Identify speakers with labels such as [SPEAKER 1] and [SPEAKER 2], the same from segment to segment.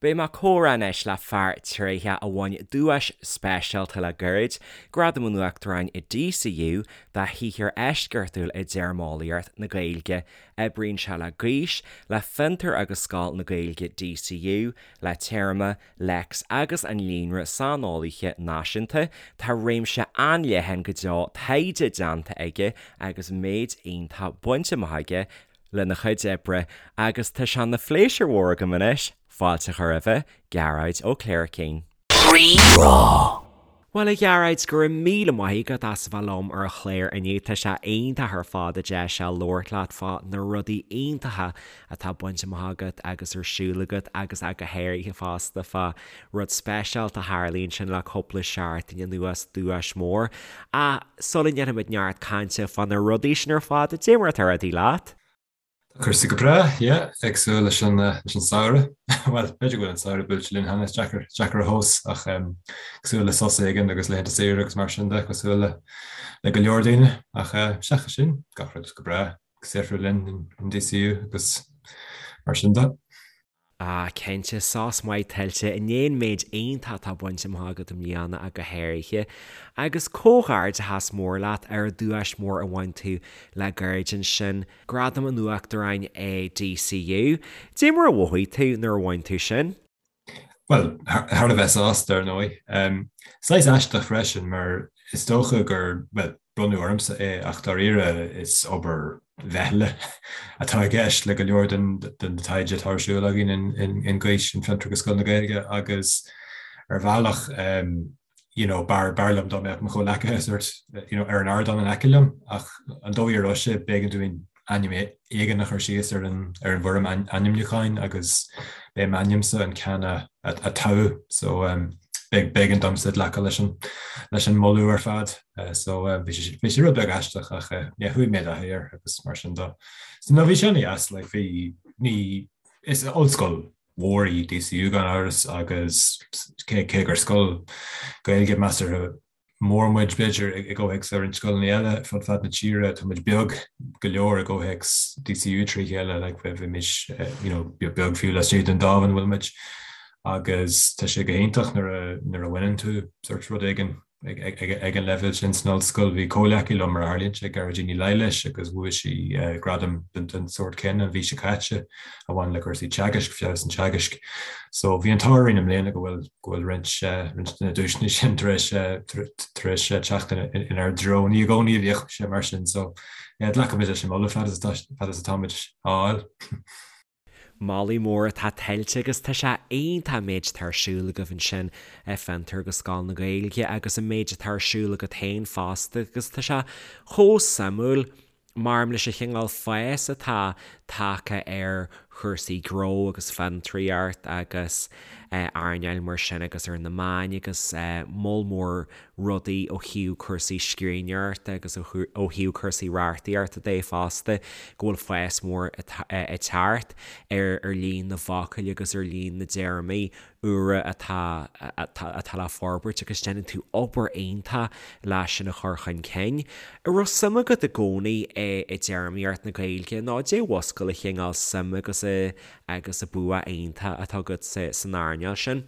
[SPEAKER 1] Beidh mé ag comhrá anois le fear tréitheach a bhain duais speisialta le gairid, Gradam an Uachtaráin i DCU, dá shaothar eisceachtúil i dtéarmeolaíocht na Gaeilge. Oibríonn sé le Gaois, le Fiontar agus Scoil na Gaeilge DCU, le Téarma, Lex agus an Líonra Saineolaithe Náisiúnta. Tá réimse an-leathan go deo taighde déanta aige agus méid iontach bainte amach aige lena chuid oibre agus tá sé ina phléisiúr mhór agam anois fáilte a chur roimhe, Gearóid Ó Cléircín. Rí-Rá. Bhuel, a Ghearóid, go raibh míle maith agat as a bheith liom ar an chlár inniu. Tá sé iontach ar fad an deis seo labhairt leat fá na rudaí iontacha atá bainte amach agat agus ar siúl agat agus ach go háirithe fosta fá rud speisialta a tharla ansin le cúpla seachtain anuas, duais mhór. Ach sula ndéanfaimid neart cainte fá na rudaí sin ar fad, dé mar atá rudaí leat?
[SPEAKER 2] Tá cúrsaí go breá, yeah, ag súil leis an leis an samhradh. Bhuel, b'fhéidir go bhfuil an samhradh buailte linn cheana, is deacair, deacair a thomhas, ach ag súil le sos éigin agus laethanta saoire agus mar sin de, cosúil le le go leor daoine. Ach seachas sin, gach rud go breá, ag saothrú linn in DCU agus mar sin de.
[SPEAKER 1] Ah, cinnte, sos maith tuillte i ndiaidh an méid iontach atá bainte amach agat i mbliana ach go háirithe. Agus comhghairdeachas mór leat ar an duais mhór a bhain tú le gairid ansin, Gradam an Uachtaráin i DCU. Dé mar a mhothaigh tú nuair a bhain tú sin?
[SPEAKER 2] Bhuel, thar a bheith sásta, ar ndóigh. Saghas aisteach freisin mar is dócha gur, bhuel, bronnadh ormsa é ach dáiríre is obair mheithle atá i gceist le go leor den taighde atá ar siúl againn in Gaois, in Fiontar agus Scoil na Gaeilge agus ar bhealach you know b'fhearr b'fhearr liom dá mbeadh mo chomhleacaithe sort you know ar an ardán in aice liom ach an dóigh a raibh sé b'éigean dúinn ainm éigin a chur síos ar an ar an bhfoirm ainmniúcháin agus b'é m'ainmse an ceann a a toghadh so b'éigean domsa glacadh leis an leis an moladh ar fad so bhí sé bhí sé rud beag aisteach ach yeah chuaigh mé i dtaithí air agus mar sin de. So no bhí sé an-deas like bhí ní is ollscoil mhór í DCU gan amhras agus cé cé gur scoil Gaeilge measartha mór muid, b'fhéidir, i gcomhthéacs roinnt scoileanna eile fud fad na tíre. Tá muid beag go leor i gcomhthéacs DCU trí chéile, like, bheimis, you know, beag fiú laistigh den dámh ina bhfuil muid. Agus tá sé go hiontach nuair a, nuair a bhaineann tú sort rud éigin ag, ag, ag, ag an leibhéal sin san ollscoil. Bhí comhleacaí liom mar a tharlaíonn sé, Gearóidín Ní Laighléis, agus bhuaigh sí gradam den, den sórt céanna an mhí seo caite a bhain le cúrsaí teagaisc, feabhas an teagaisc. So bhí an t-ádh orainn i mbliana go bhfuil, go bhfuil roinnt, roinnt de na duaiseanna sin tar éis, tar éis teacht inár dtreo. Ní i gcónaí a bhíodh sé mar sin so yeah, glacaimid leis an moladh fad is atá, fad is atáimid á fháil.
[SPEAKER 1] Moladh mór atá tuillte agus tá sé iontach an méid atá ar siúl agaibh ansin i Fiontar agus Scoil na Gaeilge agus an méid atá ar siúl agat féin fosta agus tá sé chomh suimiúil Maram leis an chineál fás atá tagtha ar chúrsaí gnó agus fiontraíocht agus earnáil mar sin agus ar na meáin agus moll mór rudaí ó thaobh cúrsaí scríbhneoireachta agus ó thaobh cúrsaí reachtaíochta de fosta, go bhfuil fás mór ag teacht ar líon na bhfocal agus ar líon na dtéarmaí úra atá atá le forbairt agus déanann tú obair iontach leis sin a chur chun cinn. An raibh suim agat i gcónaí i dtéarmaíocht na Gaeilge nó dé mhuscail an chineál suim agus agus an bua iontach atá agat san earnáil sin?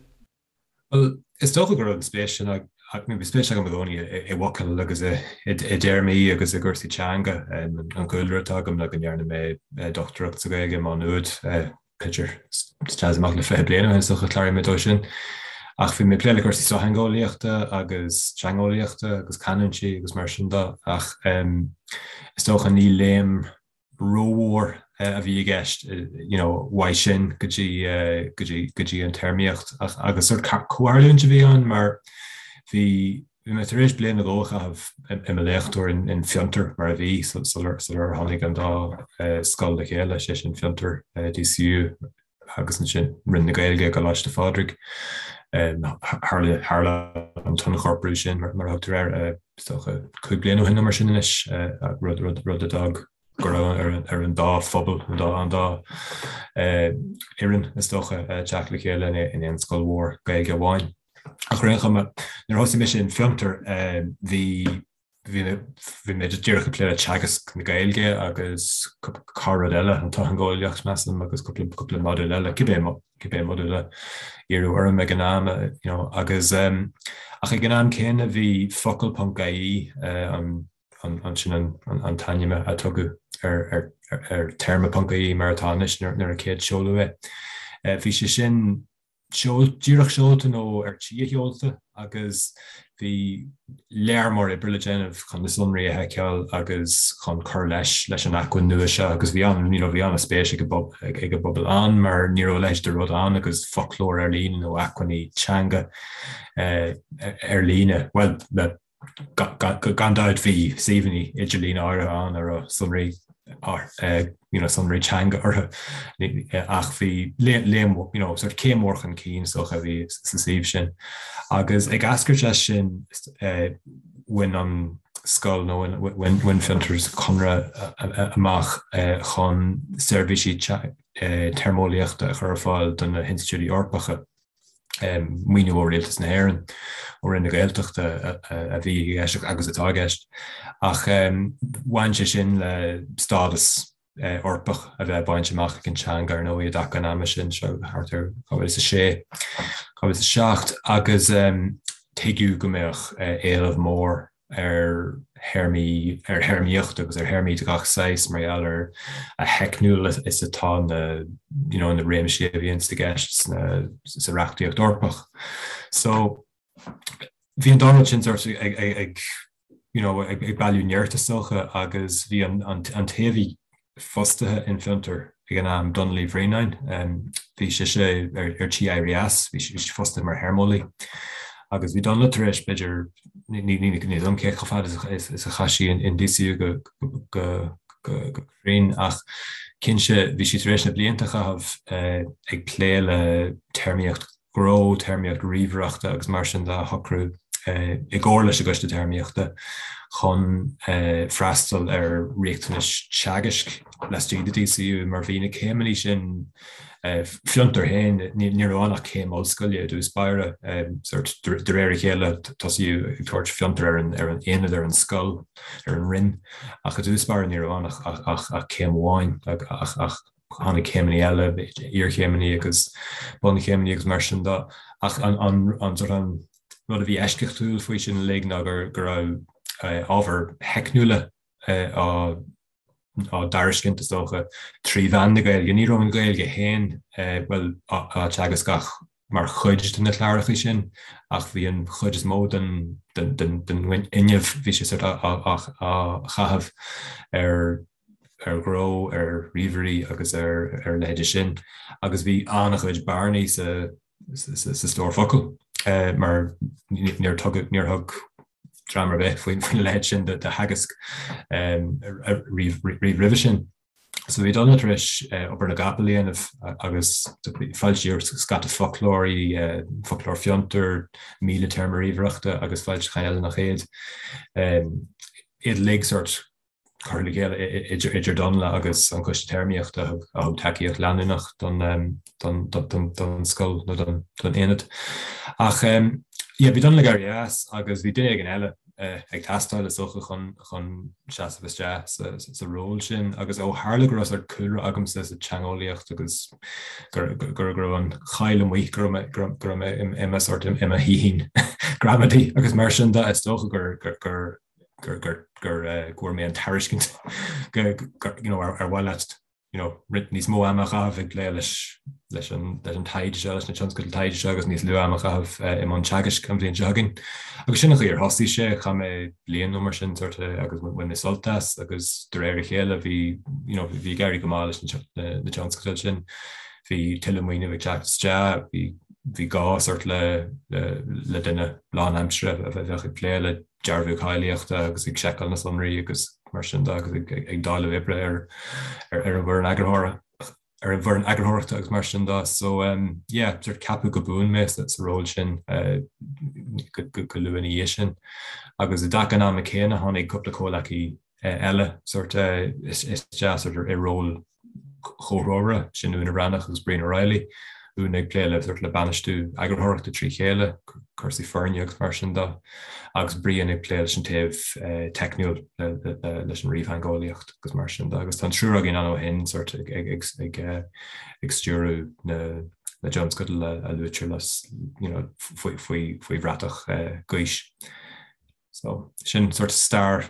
[SPEAKER 2] Bhuel, is dócha go raibh an spéis sin bhí spéis agam i gcónaí i bhfocail agus i dtéarmaí agus i gcúrsaí teanga. An cúlra atá agam le go ndearna mé dochtúireacht sa Ghaeilge i Má Nuad, b'fhéidir, isteach is amach le 20 bliain ó shin is dócha, chláraigh mé dó sin. Ach bhí mé ag plé le cúrsaí sochtheangeolaíochta agus teangeolaíochta agus canúintí agus mar sin de ach is dócha ní léim rómhór a bhí i gceist you know uaidh sin go dtí go dtí go dtí an téarmaíocht ach agus sort comhtharlúint a bhí ann mar bhí Bhí mé tar éis bliain nó dhó a chaitheamh i mo léachtóir in Fiontar, mar a bhí, sular tháinig an dá scoil le chéile, sé sin Fiontar, DCU, agus ansin Roinn na Gaeilge i gColáiste Phádraig. Tharla an t-ionchorprú sin, mar a thugtar air, is dócha 5 bliana ó shin nó mar sin anois, rud a d'fhág go raibh ar an dá phobal, an dá an dá fhoireann, is dócha, teacht le chéile in aon scoil mhór Gaeilge amháin. Ach ar aon chuma, nuair a thosaigh mise in Fiontar, bhí. Bhí bhí mé díreach ag plé le teagasc na Gaeilge agus corr-rud eile, an tsochtheangeolaíocht, measaim, agus cúpla cúpla modúl eile, cibé cibé modúl a iarradh orm ag an am, you know, agus ach ag an am céanna bhí focal ponc ie, an an sin an an t-ainm a tugadh ar ar ar téarma ponc ie mar atá anois nuair a céad seoladh é. Bhí sé sin díreach seolta nó ar tí a sheolta agus bhí lear mór oibre le déanamh chun na sonraí a sheiceáil agus chun cur leis leis an acmhainn nua seo agus bhí an you know bhí an-spéis ag ag ag an bpobal ann mar ní raibh a leithéid de rud ann agus foclóir ar líne nó acmhainní teanga ar líne, bhuel le Gan dabht bhí suíomhanna idirlín áirithe ann a raibh sonraí you know sonraí teanga orthu ach bhí léim you know sort céim mhór chun cinn is dócha a bhí sa suíomh sin. Agus ag eascairt as sin bhain an scoil nó bhain Fiontar conradh amach chun seirbhísí téarmeolaíochta a chur ar fáil do na hinstitiúidí Eorpacha. maoiniú ó Rialtas na hÉireann, ó Roinn na Gaeltachta a bhí i gceist agus atá i gceist. Ach bhain sé sin le stádas Eorpach a bheith bainte amach ag an teanga ar ndóigh i dtaca an ama sin, seo thart ar 2006, 2007, agus tuigeadh go mbeadh éileamh mór ar théarmaí, ar théarmaíocht agus ar théarmaí de gach saghas mar gheall ar a theicniúla is atá na, you know, na réimsí a bhíonns i gceist sna, sa reachtaíocht Eorpach. So, bhí an dá rud sin sort ag, ag, ag, you know, ag, ag bailiú nirt is dócha agus bhí an, an, an té a bhí fostaithe in Fiontar ag an am, Donla Uí Bhraonáin. Bhí sise ar tí éirí as, bhí sí fostaithe mar théarmeolaí. Agus bhí Donla tar éis, b'fhéidir, ní fhios agam cé chomh fada is a chaith sí in DCU go cruinn, ach cinnte bhí sí tar éis na blianta a chaitheamh ag plé le téarmaíocht ghnó, téarmaíocht ríomhaireachta agus mar sin de a shocrú i gcomhar leis an gCoiste Téarmaíochta chun freastal ar riachtanais teagaisc laistigh de DCU mar bhí na céimeanna sin Fiontar féin, ní raibh ann ach céim ollscoile i dtús báire, sort de réir a chéile tosaíodh ag tabhairt Fiontar ar an ar an aonad, ar an scoil, ar an roinn ach i dtús báire ní raibh ann ach ach céim amháin ach ach tháinig céimeanna eile, iarchéimeanna agus bunchéimeanna agus mar sin de. Ach an an sort an rud a bhí eisceachtúil faoi sin uilig ná gur go raibh ábhair theicniúla á á dtairiscint is dócha trí mheán na Gaeilge. Ní raibh an Ghaeilge féin bhuel á teagasc ach mar chuid de na cláracha sin ach bhí an chuid is mó den den den den fhuinneamh bhí sé sort á á á chaitheamh ar ar ghnó, ar ríomhairí agus ar a leithéide sin agus bhí an-chuid bearnaí sa sa stór focal mar níor tugadh, níor thug dream ar bith faoina leithéid sin de theagasc riamh roimhe sin. So bhí Donla tar éis obair na gcapall a dhéanamh agus foilsíodh scata foclóirí, foclóir Fiontar, 1000 téarma ríomhaireachta agus foilseacháin eile nach iad. Iad uilig sort curtha le chéile idir Donla agus an Coiste Téarmaíochta a thug tacaíocht leanúnach don scoil nó don aonad. Ach yeah, bhí Donla ag éirí as agus bhí duine éigin eile ag teastáil is dócha chun chun seasamh isteach sa ról sin agus ó tharla go raibh sort cúlra agamsa sa teangeolaíocht agus go go raibh an cháil amuigh go raibh go raibh mé i mo sort i mo shaoithín gramadaí agus mar sin de is dócha gur gur gur gur gur go bhfuair mé an tairiscint go you know ar mhaith leat you know roinnt níos mó ama a chaitheamh ag plé leis leis an leis an taighde seo leis na tionscadail taighde seo agus níos lú ama a chaitheamh i mbun teagaisc an bhliain seo chugainn. Agus sin an chaoi ar thosaigh sé, chaith mé bliain nó mar sin sort agus bhain mé sult as agus de réir a chéile bhí you know bhí ag éirí go maith leis na na tionscadail sin. Bhí tuilleadh maoiniú ag teacht isteach, bhí bhí gá sort le le le duine lánaimseartha a bheadh ag plé le dearbhú cáilíochta agus ag seiceáil na sonraí agus mar sin de agus ag dáileadh oibre ar ar an bhfoireann eagarthóra ar an bhfoireann eagarthóireachta agus mar sin de. So um, yeah, sort ceapadh go buan mé sa, sa ról sin uh, go, go, go luath ina dhiaidh sin. Agus i dtaca an ama céanna tháinig cúpla comhleacaí uh, eile sort uh, isteach sort i ról comhthreomhara, sin Úna Bhreathnach agus Brian O'Reilly. Úna ag plé le sort le bainistiú eagarthóireachta trí chéile, cúrsaí foirne agus mar sin de, agus Brian ag plé leis an taobh teicniúil leis an ríomhtheangeolaíocht agus mar sin de. Agus tá an triúr againn ann ó shin sort ag ag ag ag stiúradh na na dtionscadal a luaitear le you know faoi faoi faoi bhratach Gaois. So sin sort stair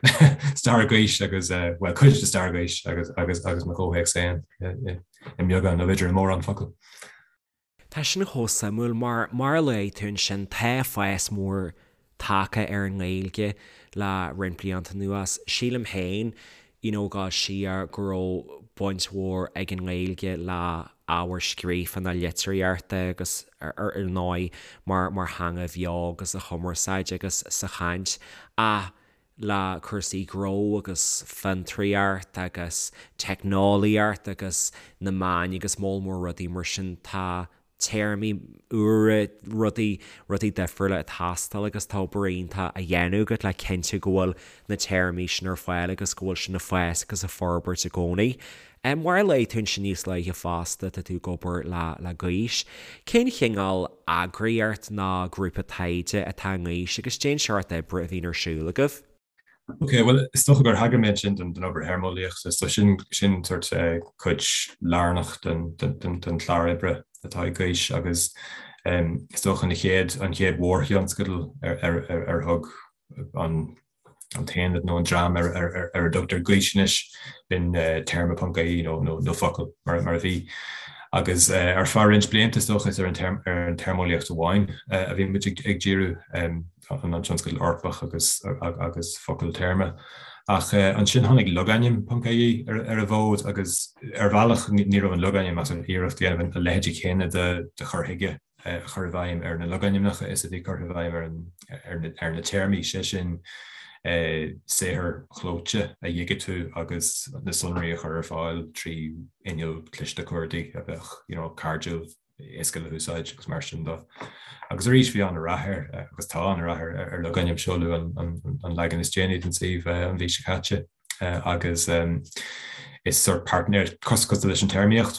[SPEAKER 2] stair Gaois agus bhuel cuid de stair Gaois agus agus agus mo chomhthéacs féin i mbeagán nó b'fhéidir i mórán focal.
[SPEAKER 1] Tá sin chomh suimiúil mar mar a luaigh tú ansin tá fás mór tagtha ar an nGaeilge le roinnt blianta anuas. Sílim féin you know go siar go raibh baint mhór ag an nGaeilge le ábhar scríofa na litríochta agus ar ndóigh mar mar theanga bheo agus sa chumarsáid agus sa chaint ach le cúrsaí gnó agus fiontraíocht agus teicneolaíocht agus na meáin agus moll mór rudaí mar sin tá téarmaí úra, rudaí, rudaí difriúla ag teastáil agus tá obair iontach á dhéanamh agat le cinntiú go bhfuil na téarmaí sin ar fáil agus go bhfuil sin ag fás agus ag forbairt i gcónaí. Mar a luaigh tú ansin níos luaithe fosta, tá tú ag obair le, le Gaois. Cén chineál eagraíocht nó grúpa taighde atá i nGaois agus cén seort oibre a bhíonn ar siúl agaibh?
[SPEAKER 2] Ok, bhuel, is dócha gur thagair mé ansin don obair théarmeolaíochta, so sin sin sort cuid lárnach den den chlár oibre atá ag Gaois agus is dócha an chéad an chéad mhórthionscadal ar ar ar ar thug an an t-aonad nó an dream ar ar ar ar a dtugtar Gaois anois b'in téarma ponc ie nó nó nó focal mar mar a bhí. Agus ar feadh roinnt blianta is dócha is ar an ar an téarmeolaíocht amháin a bhí muid ag ag díriú. an tionscadal Eorpach agus agus focal téarma. Ach ansin tháinig logainm ponc ie ar an bhfód agus ar bhealach ní raibh an logainm ach iarracht a dhéanamh a leithéid chéanna de chur chuige a chur i bhfeidhm ar na logainmneacha is a bhí curtha i bhfeidhm ar an ar na téarmaí, sé sin saothair chlóite a dhigitiú agus na sonraí a chur ar fáil trí inneall cliste cuardaigh a bheadh you know cairdiúil. éasca le húsáid agus mar sin de. Agus arís bhí an-rath air agus tá an-rath ar ar logainm seoladh an leagan is déanaí den suíomh an mhí seo caite agus is sort páirtnéir cosúil leis an téarmaíocht,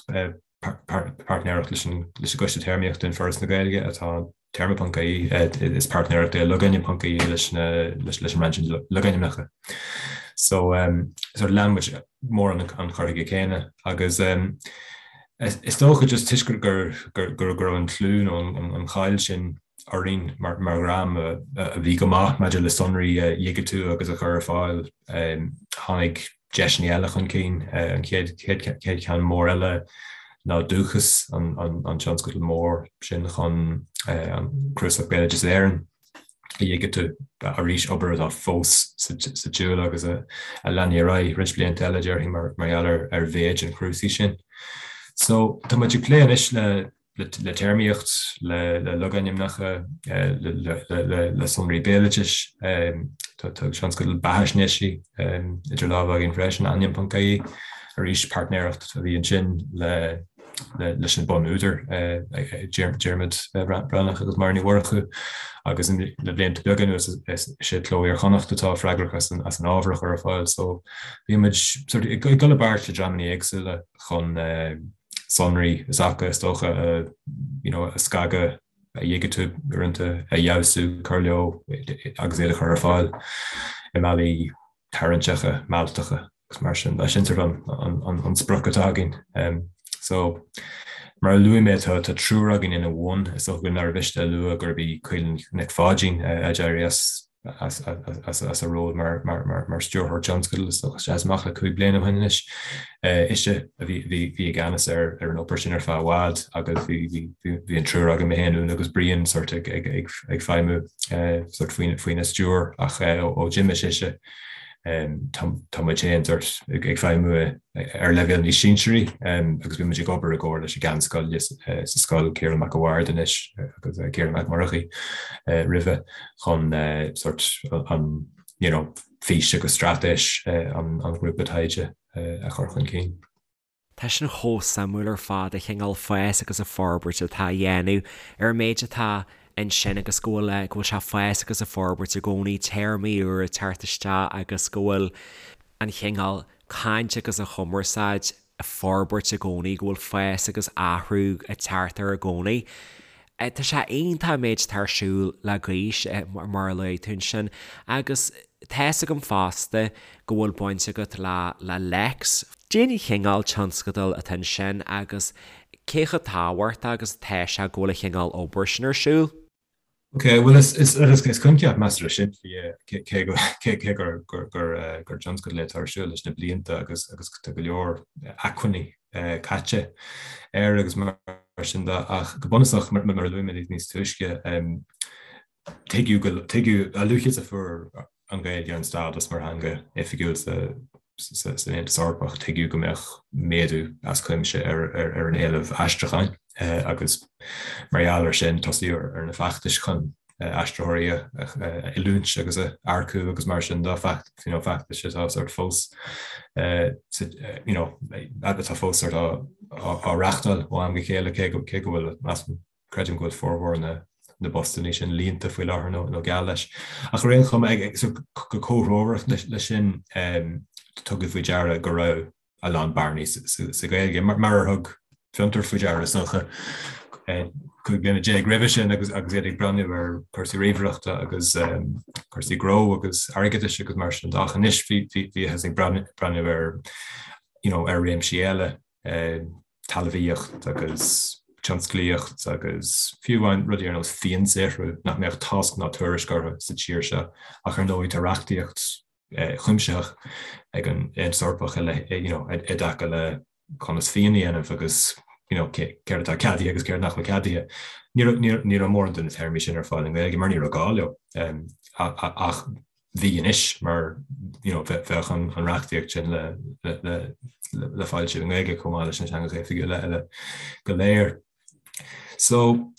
[SPEAKER 2] páirtnéireacht leis an leis an gCoiste Téarmaíochta in Foras na Gaeilge atá téarma ponc ie, is páirtnéireacht é logainm ponc ie leis leis an roinn sin logainmneacha. So sort lean muid mórán an chur chuige céanna agus Is dócha just toisc gur go raibh an clú nó an cháil sin orainn mar dhream a bhí go maith maidir le sonraí a dhigitiú agus a chur ar fáil, tháinig deiseanna eile chun cinn. An chéad cheann mór eile ná Dúchas, an tionscadal mór sin chun an Cnuasach Béaloideas Éireann. a dhigitiú arís, obair atá fós sa tsiúl agus a leanfaidh ar aghaidh roinnt blianta eile, déarfainn, mar gheall ar mhéid an chnuasaigh sin. So, tá muid ag plé anois le le téarmaíocht, le le logainmneacha, le le sonraí béaloidis, tá tionscadal beathaisnéisí idir lámha againn freisin, ainm.ie, arís páirtnéireacht a bhí ansin le leis na bunúdair, Diarmuid Breathnach agus Máire Ní Mhurchú, agus le blianta beaga anuas is é Cló Iar-Chonnacht atá freagrach as an ábhar a chur ar fáil. So bíonn muid sort ag dul i bpáirt le dreamanna éagsúla chun sonraí is acu is dócha you know, a scagadh, a dhigitiú uaireanta, a fheabhsú, cur leo agus iad a chur ar fáil i mbealaí tarraingteacha, mealltacha agus mar sin. Sin sort an sprioc atá againn. So, mar a luaigh mé, tá triúr againn ina bhun. Is dócha nár mhiste a lua gurb í Caoilfhionn Nic Pháidín a d'éirigh as as a ról mar stiúrthóir tionscadail, is dócha, is amach le 5 bliana ó shin anois. Ise a bhí i gceannas ar an obair sin ar feadh i bhfad agus bhí an triúr againn, mé féin, Úna agus Brian, sort ag feidhmiú sort faoina stiúir ach ó d'imigh sise tá muid féin sort ag feidhmiú ar leibhéal níos sinsearaí agus bíonn muid ag obair i gcomhar leis an gceann scoile sa scoil, Ciarán Mac a' Bhaird anois agus Ciarán Mac Murchaidh roimhe chun sort an you know fís agus straitéis an ghrúpa taighde a chur chun cinn.
[SPEAKER 1] Tá sin chomh suimiúil ar fad, an cineál fás agus an forbairt atá á dhéanamh ar an méid atá ansin agus go bhfuil, go bhfuil sé ag fás agus ag forbairt i gcónaí, téarmaí úra ag teacht isteach agus go bhfuil an chineál caint agus an chumarsáid. forbairt i gcónaí, go bhfuil fás agus athrú ag teacht air i gcónaí. Tá sé iontach an méid atá ar siúl le Gaois, mar a luaigh tú ansin, agus tá's agam fosta go bhfuil baint agat le le Lex. Cén chineál tionscadal atá ansin agus cé chomh tábhachtach agus atá sé go bhfuil an chineál obair sin ar siúl?
[SPEAKER 2] Ok, bhuel is is is coincheap measartha simplí é cé go cé gur gur gur gur tionscadal é atá ar siúl leis na blianta agus agus tá go leor acmhainní caite air agus mar sin de ach go bunúsach mar a luaigh mé níos túisce tuigeadh go tuigeadh a luaithe is a fuair an Ghaeilge an stádas mar theanga oifigiúil sa san Aontas Eorpach, tuigeadh go mbeadh méadú as cuimse ar ar an éileamh aistriúcháin agus mar gheall air sin tosaíodh ar na feachtais chun aistritheoirí a oiliúint agus a earcú agus mar sin de, you know, feachtais atá sort fós you know, atá fós sort á á reáchtáil ó am go chéile cé go cé go bhfuil measaim creidim go bhfuil formhór na na bpostanna sin líonta faoi láthair nó nó geall leis. Ach ar aon chuma ag so go comhthreomhar leis sin tugadh faoi deara go raibh a lán bearnaí sa Ghaeilge, mar ar thug Fiontar faoi deara is dócha 15 bliana roimhe sin agus agus iad ag breathnú ar chúrsaí ríomhaireachta agus cúrsaí gnó agus airgeadais agus mar sin de. Ach anois bhíothas ag breathnú ar you know, ar réimsí eile, talmhaíocht agus tionsclaíocht agus fiú amháin rudaí ar nós fíonsaothrú nach mbeadh tásc ná tuairisc orthu sa tír seo ach ar ndóigh tá reachtaíocht chuimsitheach ag an Aontas Eorpach you know, i dtaca le conas fíon a dhéanamh agus you know, céard atá ceadaithe agus céard nach bhfuil ceadaithe. Ní ní raibh mórán de na téarmaí sin ar fáil i nGaeilge mar ní raibh gá leo ach bhí anois mar you know, bheadh an reachtaíocht sin le le le foilsiú i nGaeilge chomh maith leis na teangacha oifigiúla eile go léir. So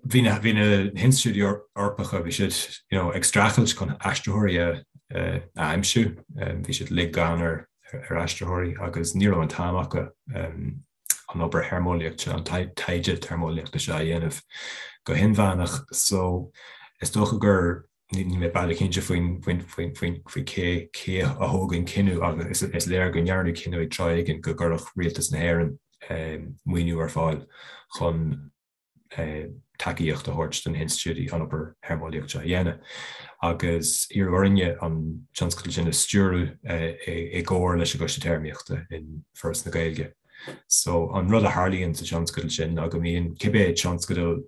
[SPEAKER 2] bhí na bhí na hinstitiúidí Eorpacha bhí siad you know, ag streachailt chun aistritheoirí a a aimsiú, bhí siad uilig gann ar ar aistritheoirí agus ní raibh an t-am acu an obair théarmeolaíochta seo, an taighde téarmeolaíochta seo a dhéanamh go hinmheánach. So is dócha gur níl mé baileach cinnte faoin faoin faoin faoin faoi cé cé a thóg an cinneadh agus is léir go ndearnadh cinneadh ag tráth éigin go gcuirfeadh Rialtas na hÉireann maoiniú ar fáil chun tacaíocht a thabhairt do na hinstitiúidí an obair théarmeolaíochta seo a dhéanamh. Agus iarradh orainne an tionscadal sin a stiúradh i gcomhar leis an gCoiste Téarmaíochta in Foras na Gaeilge. So an rud a tharlaíonn sa tionscadal sin ná go mbíonn cibé tionscadal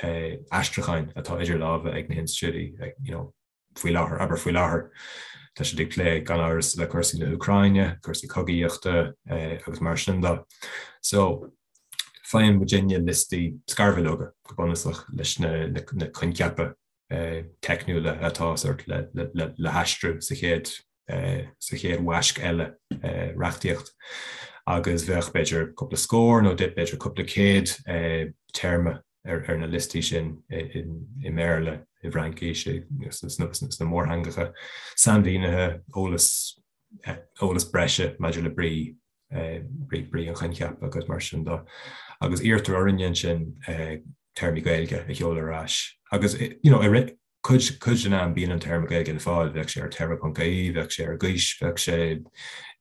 [SPEAKER 2] aistriúcháin atá idir lámha ag na hinstitiúidí you know, faoi láthair, abair faoi láthair, tá siad ag plé gan amhras le cúrsaí na hÚcráine, cúrsaí cogaíochta agus mar sin de. So, faigheann muidinne liostaí scarbhileoga go bunúsach leis na, na, na coincheapa teicniúla atá sort le, le, le, le haistriú sa chéad sa chéad bhaisc eile reachtaíocht agus bheadh b'fhéidir cúpla scór nó b'fhéidir cúpla céad téarma ar na liostaí sin i mBéarla, i bhFraincis, sna mórtheangacha, sainmhínithe, eolas, eolas breise maidir le brí, brí an choincheapa agus mar sin de. Agus iarrtar orainne ansin téarmaí Gaeilge a sheoladh ar ais. Agus you know, Cuid, cuid den am bíonn an téarma Gaeilge le fáil, bheadh sé ar téarma.ie, bheadh sé ar Gaois, bheadh sé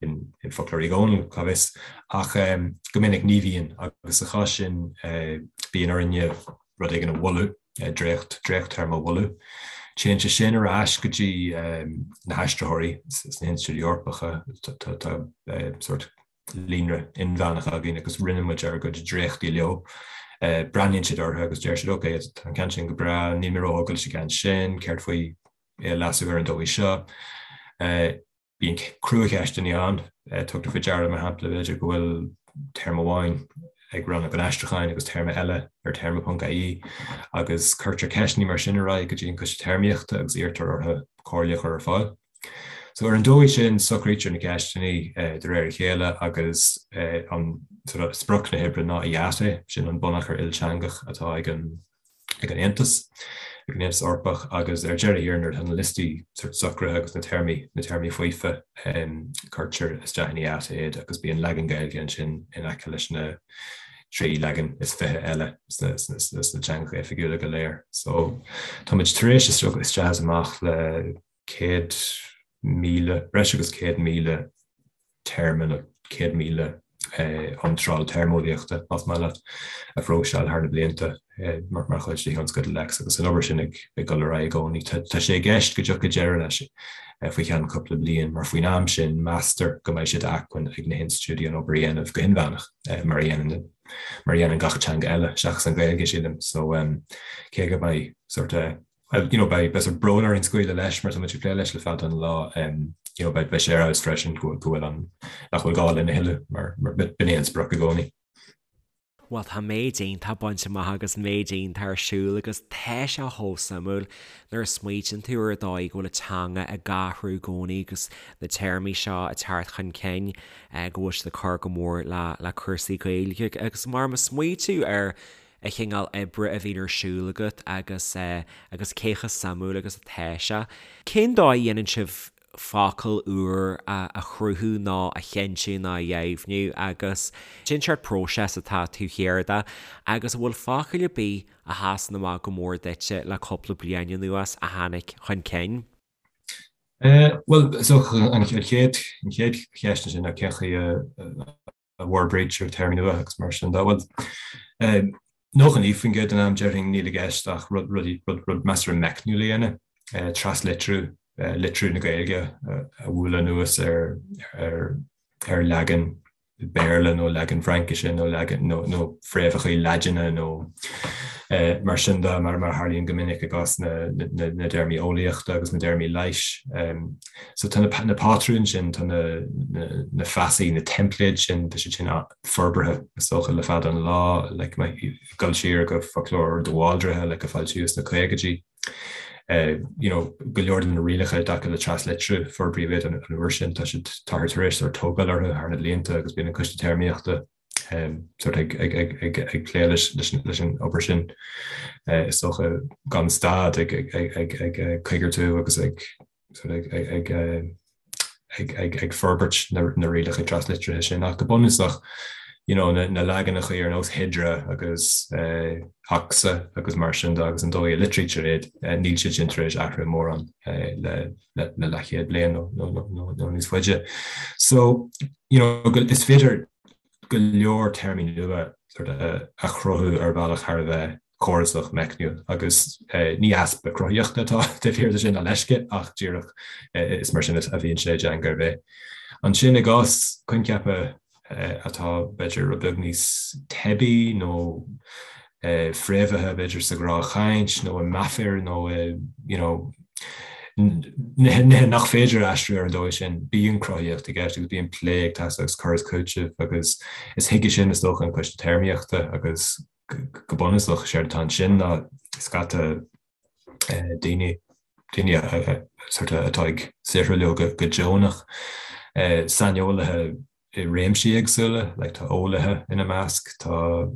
[SPEAKER 2] in, in Foclóir Uí Dhónaill, cá bhfios. Ach go minic ní bhíonn agus sa chás sin bíonn orainne rud éigin a mholadh, dréacht, dréacht-téarma a mholadh. Téann sé sin ar ais go dtí na haistritheoirí sna hinstitiúidí Eorpacha, tá, tá sórt líonra inmheánach againn agus roinneann muid ár gcuid dréachtaí leo. Breathnaíonn siad orthu agus deir siad ok, tá an ceann sin go breá, níl mé róthógtha leis an gceann sin, céard faoi é a leasú ar an dóigh seo? Bíonn cruacheisteanna ann, tugtar faoi deara mar shampla b'fhéidir go bhfuil téarma amháin ag Rannóg an Aistriúcháin agus téarma eile ar téarma.ie agus cuirtear ceisteanna mar sin ar aghaidh go dtí an Coiste Téarmaíochta agus iarrtar orthu comhairle a chur ar fáil. So ar an dóigh sin socraítear na ceisteanna de réir a chéile agus an sort of sprioc na hoibre ná IATE, sin an bunachar ilteangach atá ag an ag an Aontas, ag an Aontas Eorpach agus ar deireadh thiar nuair atá na liostaí sort socraithe agus na téarmaí na téarmaí faofa cuirtear isteach in IATE iad agus bíonn leagan Gaeilge ansin in aice leis na 23 leagan eile sna sna teangacha oifigiúla go léir. So táimid tar éis isteach is amach le 100,000, breis agus 100,000 téarma nó 100,000 iontráil téarmeolaíochta, más maith leat, a phróiseáil thar na blianta mar chuid de thionscadal Lex agus an obair sin ag dul ar aghaidh i gcónaí. Tá sé i gceist go dtiocfaidh deireadh leis faoi cheann cúpla bliain mar faoin am sin meastar go mbeidh sé d'acmhainn ag na hinstitiúidí an obair a dhéanamh go hinmheánach mar a dhéanann mar a dhéanann gach teanga eile seachas an Ghaeilge, sílim. So cé go mbeidh sort Well, you know, beidh beidh sort brón orainn scaoileadh leis mar tá muid ag plé leis le fada an lá, you know, beidh beidh sé ar fheabhas freisin go go bhfuil an nach bhfuil gá linn a thuilleadh mar mar b'in é an sprioc i gcónaí.
[SPEAKER 1] Bhuel, tá méid iontach bainte amach agus méid iontach ar siúl agus tá sé chomh suimiúil nuair a smaoitíonn tú ar an dóigh go bhfuil an teanga ag athrú i gcónaí agus na téarmaí seo ag teacht chun cinn, go bhfuil siad ag cur go mór le le cúrsaí Gaeilge agus mar má smaoitiú ar an chineál oibre a bhíonn ar siúl agat agus agus cé chomh suimiúil agus atá sé. Cén dóigh a dhéanann sibh focal úr a chruthú nó a chinntiú nó a dheimhniú agus cén seort próiseas atá taobh thiar de agus an bhfuil focail ar bith a sheasann amach go mór duitse le cúpla bliain anuas a tháinig chun cinn?
[SPEAKER 2] Bhuel, is dócha an chéad cheist ansin ná cén chaoi a a bhforbraítear téarmaí nua agus mar sin de. Bhuel, 99% den am déarfainn níl i gceist ach rud, rudaí, rud, rud measartha meicniúil a dhéanamh, traslitriú, litriú na Gaeilge a bhualadh anuas ar, ar, ar leagan Béarla nó leagan Fraincise nó leagan, nó, nó fréamhacha Laidine nó mar sin de, mar, mar a tharlaíonn go minic i gcás na, na, na dtéarmaí eolaíochta agus na dtéarmaí leighis. So tá na pátrúin sin, tá na feasaí, na teimpléid sin, tá siad sin forbartha is dócha le fada an lá, like dul siar go foclóir de Bhaldraithe like a foilsíodh sna caogaidí. You know, go leor de na rialacha i dtaca le traslitriú, forbraíodh iad an uair sin, tá siad, táthar tar éis sort tógáil orthu thar na blianta agus bíonn an Coiste Téarmaíochta sort ag ag ag ag ag plé leis leis an obair sin is dócha gan stad ag ag ag ag ag coigeartú agus ag ag ag ag ag forbairt na na rialacha traslitrithe sin ach go bunúsach you know na na leaganacha ar nós Hydra agus Ocsa agus mar sin de agus an dóigh a litrítear iad níl siad sin tar éis athrú mórán le le le leathchéad bliain nó nó nó nó níos faide. So you know is féidir go leor téarmaí nua sort of a chruthú ar bhealach thar a bheith córasach, meicniúil agus ní easpa cruthaíochta atá taobh thiar de sin ná leisce ach díreach is mar sin a bhíonn sé i dteanga ar bith. Ansin i gcás coincheapa atá b'fhéidir rud beag níos teibí nó fréamhaithe b'fhéidir sa ghnáthchaint nó i meafair nó i you know nithe nach féidir a aistriú ar an dóigh sin, bíonn cruthaíocht i gceist agus bíonn plé ag teastáil agus cur is cúiteamh agus is chuige sin is dócha an Coiste Téarmaíochta agus go bunúsach séard atá ansin ná scata daoine, daoine sort of atá ag saothrú leo go deonach, saineolaithe i réimsí éagsúla, like tá eolaithe ina measc, tá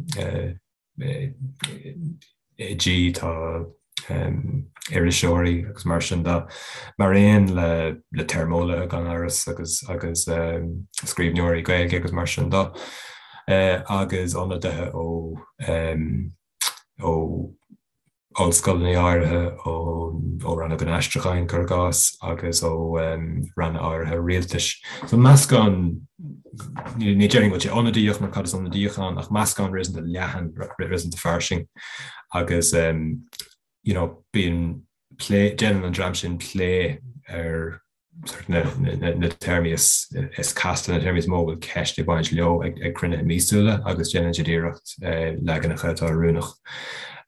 [SPEAKER 2] oidí, tá iriseoirí agus mar sin de, mar aon le le téarmeolaithe gan amhras agus agus scríbhneoirí Gaeilge agus mar sin de, agus ionadaithe ó ó ollscoileanna áirithe, ó Rannóg an Aistriúcháin, cuir i gcás, agus ó ranna áirithe rialtais. So meascán, ní déarfainn go bhfuil sé ionadaíoch mar cad is ionadaíoch ann, ach meascán réasúnta leathan, réasúnta fairsing agus you know bíonn plé, déanann an dream sin plé ar sort na téarmaí is casta, na téarmaí is mó a bhfuil ceist ag baint leo ag cruinnithe míosúla agus déanann siad iarracht leaganacha atá oiriúnach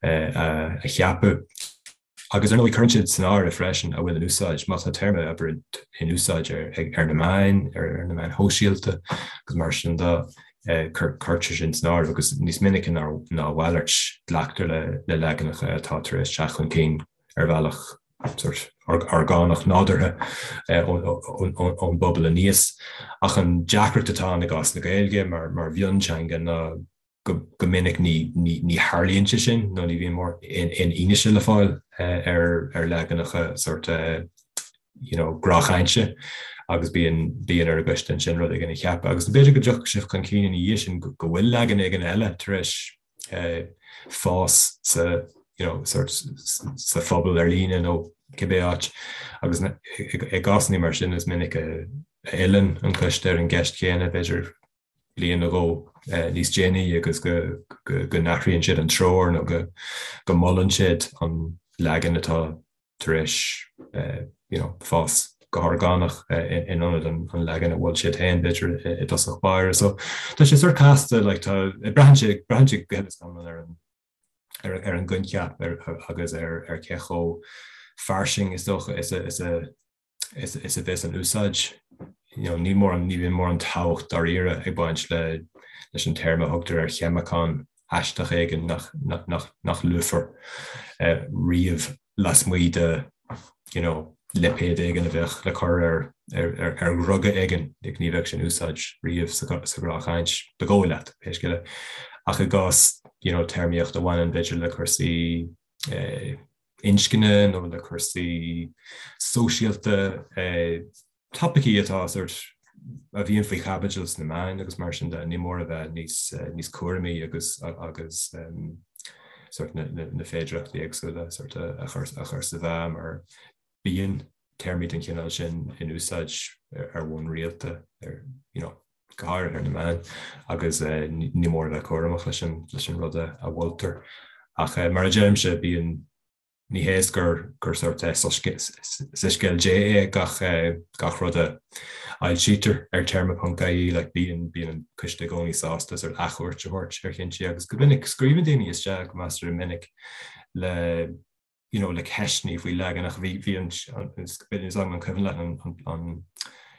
[SPEAKER 2] a cheapadh. Agus ar ndóigh cuireann siad san áireamh freisin a bhfuil in úsáid, má tá téarma abair in úsáid ar na meáin, ar na meáin shóisialta agus mar sin de, cuirtear sin san áireamh agus níos minice ná a mhalairt glactar le leaganacha atá tar éis teacht chun cinn ar bhealach sort orgánach nádúrtha ón bpobal aníos. Ach an deacracht atá ann i gcás na Gaeilge mar mhionteanga ná go minic ní tharlaíonn sé sin nó ní bhíonn mórán fhianaise le fáil ar leaganacha sort you know gnáthchainte agus bíonn bíonn ar an gcoiste ansin rud éigin a cheapadh. Agus b'fhéidir go dtiocfadh sé chun cinn ina dhiaidh sin go bhfuil leagan éigin eile tar éis fás sa you know sort sa phobal ar líne nó cibé áit agus i gcásanna mar sin is minic a fhilleann an coiste ar an gceist chéanna b'fhéidir. bliain nó dhó níos déanaí agus go n-athraíonn siad an treoir nó go molann siad an leagan atá tar éis you know fás go horgánach in ionad an leagan a mhol siad féin b'fhéidir i dtosach báire. So tá sé sórt casta like tá braitheann sé braitheann sé go huile is go hiomlán ar an ar ar an gcoincheap ar agus ar ar cé chomh fairsing is dócha is a is a is is a bheas an úsáid. You know, níl mórán ní bhíonn mórán tábhacht dáiríre ag baint le leis an téarma a thugtar ar cheimiceán aisteach éigin nach nach nach nach luafar riamh lasmuigh de you know, lipéad éigin a bheadh le cur ar ar ar ar dhruga éigin, like, ní bheadh sé in úsáid riamh sa sa ghnáthchaint, ba dhóigh leat, pé scéal é. Ach i gcás you know, téarmaíocht a bhaineann b'fhéidir le cúrsaí eh, inscne nó le cúrsaí sóisialta, topaicí atá sórt a bhíonn faoi chaibidil sna meáin agus mar sin de, ní mór a bheith níos níos cúramaí agus agus sórt na na féidearthachtaí éagsúla sórt a chur a chur sa mheá mar bíonn téarmaí den chineál sin in úsáid ar bhonn rialta ar you know go háirithe ar na meáin, agus ní mór a bheith cúramach leis an leis an rud a mholtar. Ach mar a deirimse, bíonn, ní hé is gur gur sórt soiscéal Dé é gach gach rud a fhoilsítear ar téarma.ie, like bíonn bíonn an coiste i gcónaí sásta sórt athchuairt a thabhairt ar chinntí agus go minic scríobhann daoine isteach go measartha minic le you know, le ceisteanna faoi leaganacha. Bhí, bhí an, is an cuimhin leat an, an, an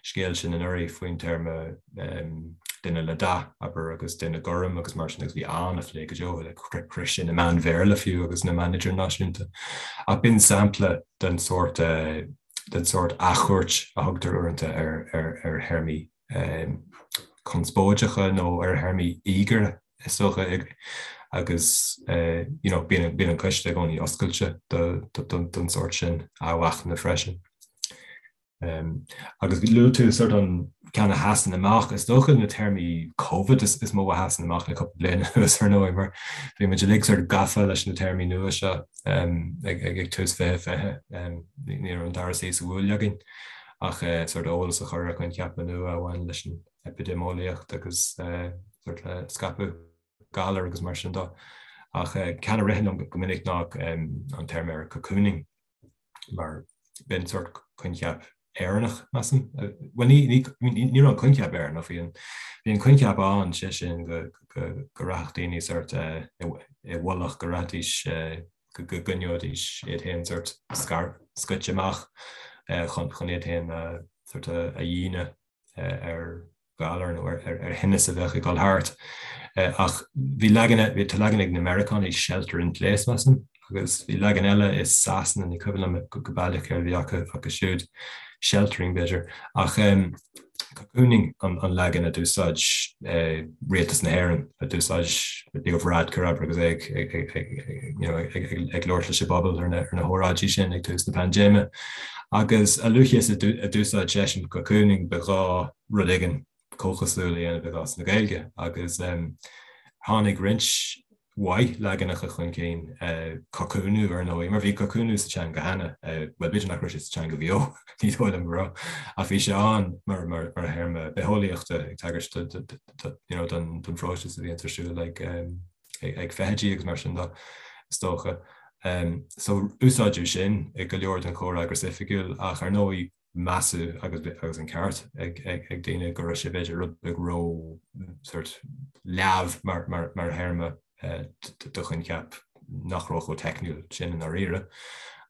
[SPEAKER 2] scéal sin anuraidh faoin téarma um, duine le dath, abair, agus duine gorm agus mar sin agus bhí an-phlé go deo le chroith sé na meáin Bhéarla fiú agus na meáin idirnáisiúnta. Ach b'in sampla den sórt uh, den sórt athchuairt a thugtar uaireanta ar, ar, ar théarmaí um, conspóideacha nó ar théarmaí íogaire is dócha, agus you know bíonn bíonn an coiste i gcónaí oscailte don sórt sin athmhachnaimh freisin. Um, agus luaigh tú sort an ceann a sheasann amach, is dócha na téarmaí Covid is, is mó a sheasann amach le cúpla bliain anuas ar ndóigh, mar bhí muid uilig sort gafa leis na téarmaí nua seo um, ag, ag, ag tús 2020, um, ní raibh an dara suí sa bhuaile againn ach uh, sort eolas a chur ar choincheapa nua a bhain leis an eipidéimeolaíocht agus sórt le scaipeadh galar agus mar sin de. Ach ceann a ritheann liom go minic ná an téarma ar cocooning mar b'in sórt coincheap Éireannach, measaim. Bhuel ní ní ní raibh an coincheap Éireannach, bhí an bhí an coincheap ann, sé sin go go go rachadh daoine sórt i bhfolach, go rachaidís go go gcoinneoidís iad féin sórt scar scoite amach chun chun iad féin sórt a dhíonadh ar ghalar nó ar thinneas a bheadh ag dul thart. Ach bhí leagan, tá leagan ag na Meiriceánaigh, shelter in place, measaim, agus bhí leagan eile i Sasana, ní cuimhin liom go baileach céard a bhí acu acu siúd, sheltering b'fhéidir. Ach cocooning an leagan a d'úsáid rialtas na hÉireann, a d'úsáid Leo Varadkar, abair, agus é ag labhairt leis an bpobal ar na hóráidí sin ag tús na paindéime. Agus a luaithe is a d'úsáid seisean cocooning, ba ghá rud éigin comhchosúil a dhéanamh i gcás na Gaeilge. Agus tháinig roinnt mhaith leaganacha chun cinn, cocúnú ar ndóigh, mar bhí cocúnú sa teanga cheana, bhuel b'fhéidir nach raibh sé sa teanga bheo, ní dóigh liom go raibh, ach bhí sé ann mar théarma bitheolaíochta ag tagairt don phróiseas a bhíonn ar siúl ag ag feithidí agus mar sin de, is dócha. So úsáideadh sin i go leor den chomhfhreagras oifigiúil ach ar ndóigh measadh agus agus an ceart ag ag daoine go raibh sé b'fhéidir rud beag ró sort leamh mar mar mar théarma do choincheap nach raibh chomh teicniúil sin i ndáiríre.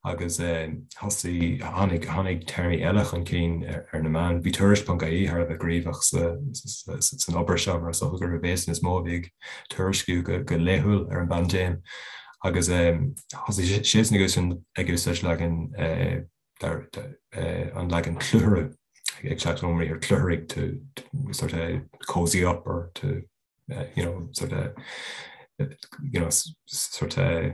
[SPEAKER 2] Agus thosaigh, tháinig, tháinig téarmaí eile chun cinn ar na meáin. Bhí Tuairisc.ie thar a bheith gníomhach san obair seo mar is dócha gurbh iadsan is mó a bhí ag tuairisciú go laethúil ar an bpaindéim. Agus thosaigh siadsan ag úsáid leagan, an leagan clutharú, ag teacht ón mbriathar clutharaigh to sort of cozy up or to you know, sort of, you know, sort of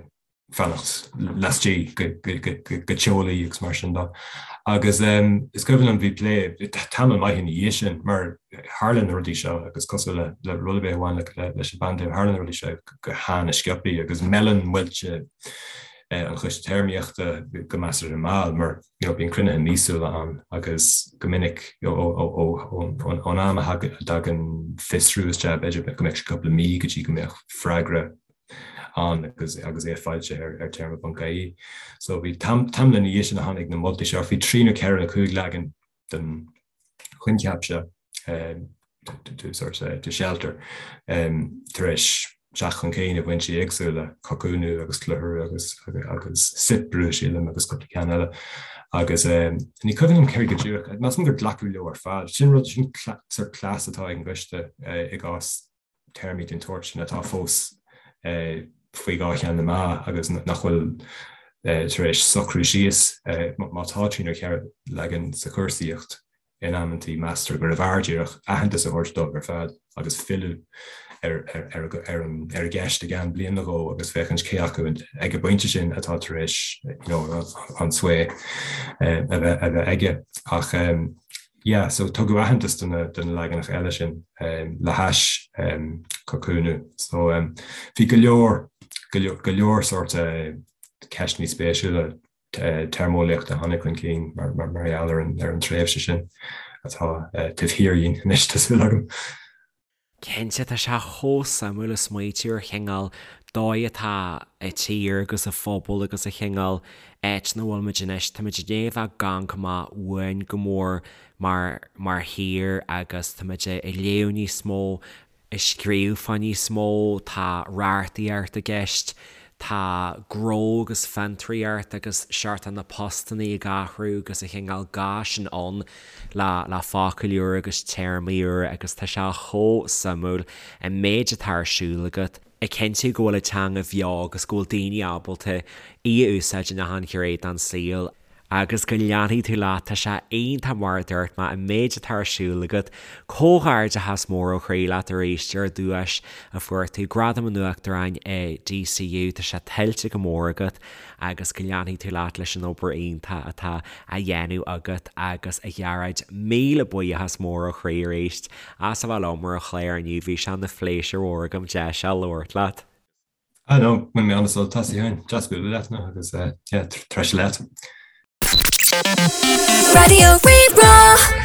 [SPEAKER 2] fanacht laistigh go teolaí agus mar sin de. Agus is cuimhin liom bhí plé tamall maith ina dhiaidh sin mar tharla na rudaí seo agus cosúil le le rud ar bith a bhain leis an bpaindéim, tharla na rudaí seo go han-sciobtha agus meileann muilte. an Choiste Téarmaíochta go measartha mall mar you know bíonn cruinnithe míosúla ann agus go minic ón am a dtagann fiosrú isteach b'fhéidir go mbeadh sé cúpla mí go dtí go mbeadh freagra ann agus agus é foilsithe ar ar téarma.ie. So bhí tamall ina dhiaidh sin a tháinig na moltaí seo, bhí 3 nó 4 nó 5 leagan den choincheap seo to sort of to shelter tar éis teacht chun cinn i bhfoinsí éagsúla, cocúnú agus clutharú agus agus soipriú sílim agus cúpla ceann eile. Agus ní cuimhin liom céard go díreach, measaim gur glacadh leo ar fad. Sin rud, sin sort cleas atá ag an gcoiste i gcás téarmaí den tsórt sin atá fós faoi dhá cheann na meá agus nach bhfuil tar éis socrú síos. Má tá trí nó cheithre leagan sa chúrsaíocht in amantaí, meastar gurbh fhearr díreach aitheantas a thabhairt dóibh ar fad agus filleadh ar an gceist i gceann bliain nó dhó agus féachaint cé acu ag an bpointe sin atá tar éis an sway a bheith aige. Ach yeah, so tugadh aitheantas do na do na leaganacha eile sin le hais cocúnú. So bhí go leor go leor sórt ceisteanna spéisiúla téarmeolaíochta a tháinig chun cinn mar mar gheall ar an ar an tréimhse sin atá taobh thiar dhínn anois tá súil agam.
[SPEAKER 1] Cinnte, tá sé chomh suimiúil ag smaoitiú ar chineál dóigh atá an tír agus an phobal agus an chineál áit ina bhfuil muid anois. Tá muid i ndiaidh a bheith ag amharc amach uainn go mór mar mar thír agus tá muid ag léamh níos mó, ag scríobh fá níos mó, tá reachtaíocht i gceist, tá gnó agus fiontraíocht agus seort na postannaí ag athrú agus an chineál gá sin ann le le focail úra agus téarmaí úra agus tá sé chomh suimiúil an méid atá ar siúl agat ag cinntiú go bhfuil an teanga bheo agus go bhfuil daoine ábalta í a úsáid in achan ghné den saol. Agus go leanfaidh tú leat, tá sé iontach mar a dúirt mé, an méid atá ar siúl agat. Comhghairdeachas mór ó chroí leat arís ar an duais a fuair tú, Gradam an Uachtaráin i DCU, tá sé tuillte go mór agat agus go leanfaidh tú leat leis an obair iontach atá á dhéanamh agat agus a Ghearóid, míle buíochas mór ó chroí arís as a bheith liom ar an chlár inniu, bhí sé ina phléisiúr mhór agam deis a labhairt leat.
[SPEAKER 2] Ah no, bhain mé an-sult as a Sheáin. Deas bualadh leat now agus yeah, treise leat.
[SPEAKER 3] Raidió Rí-Rá.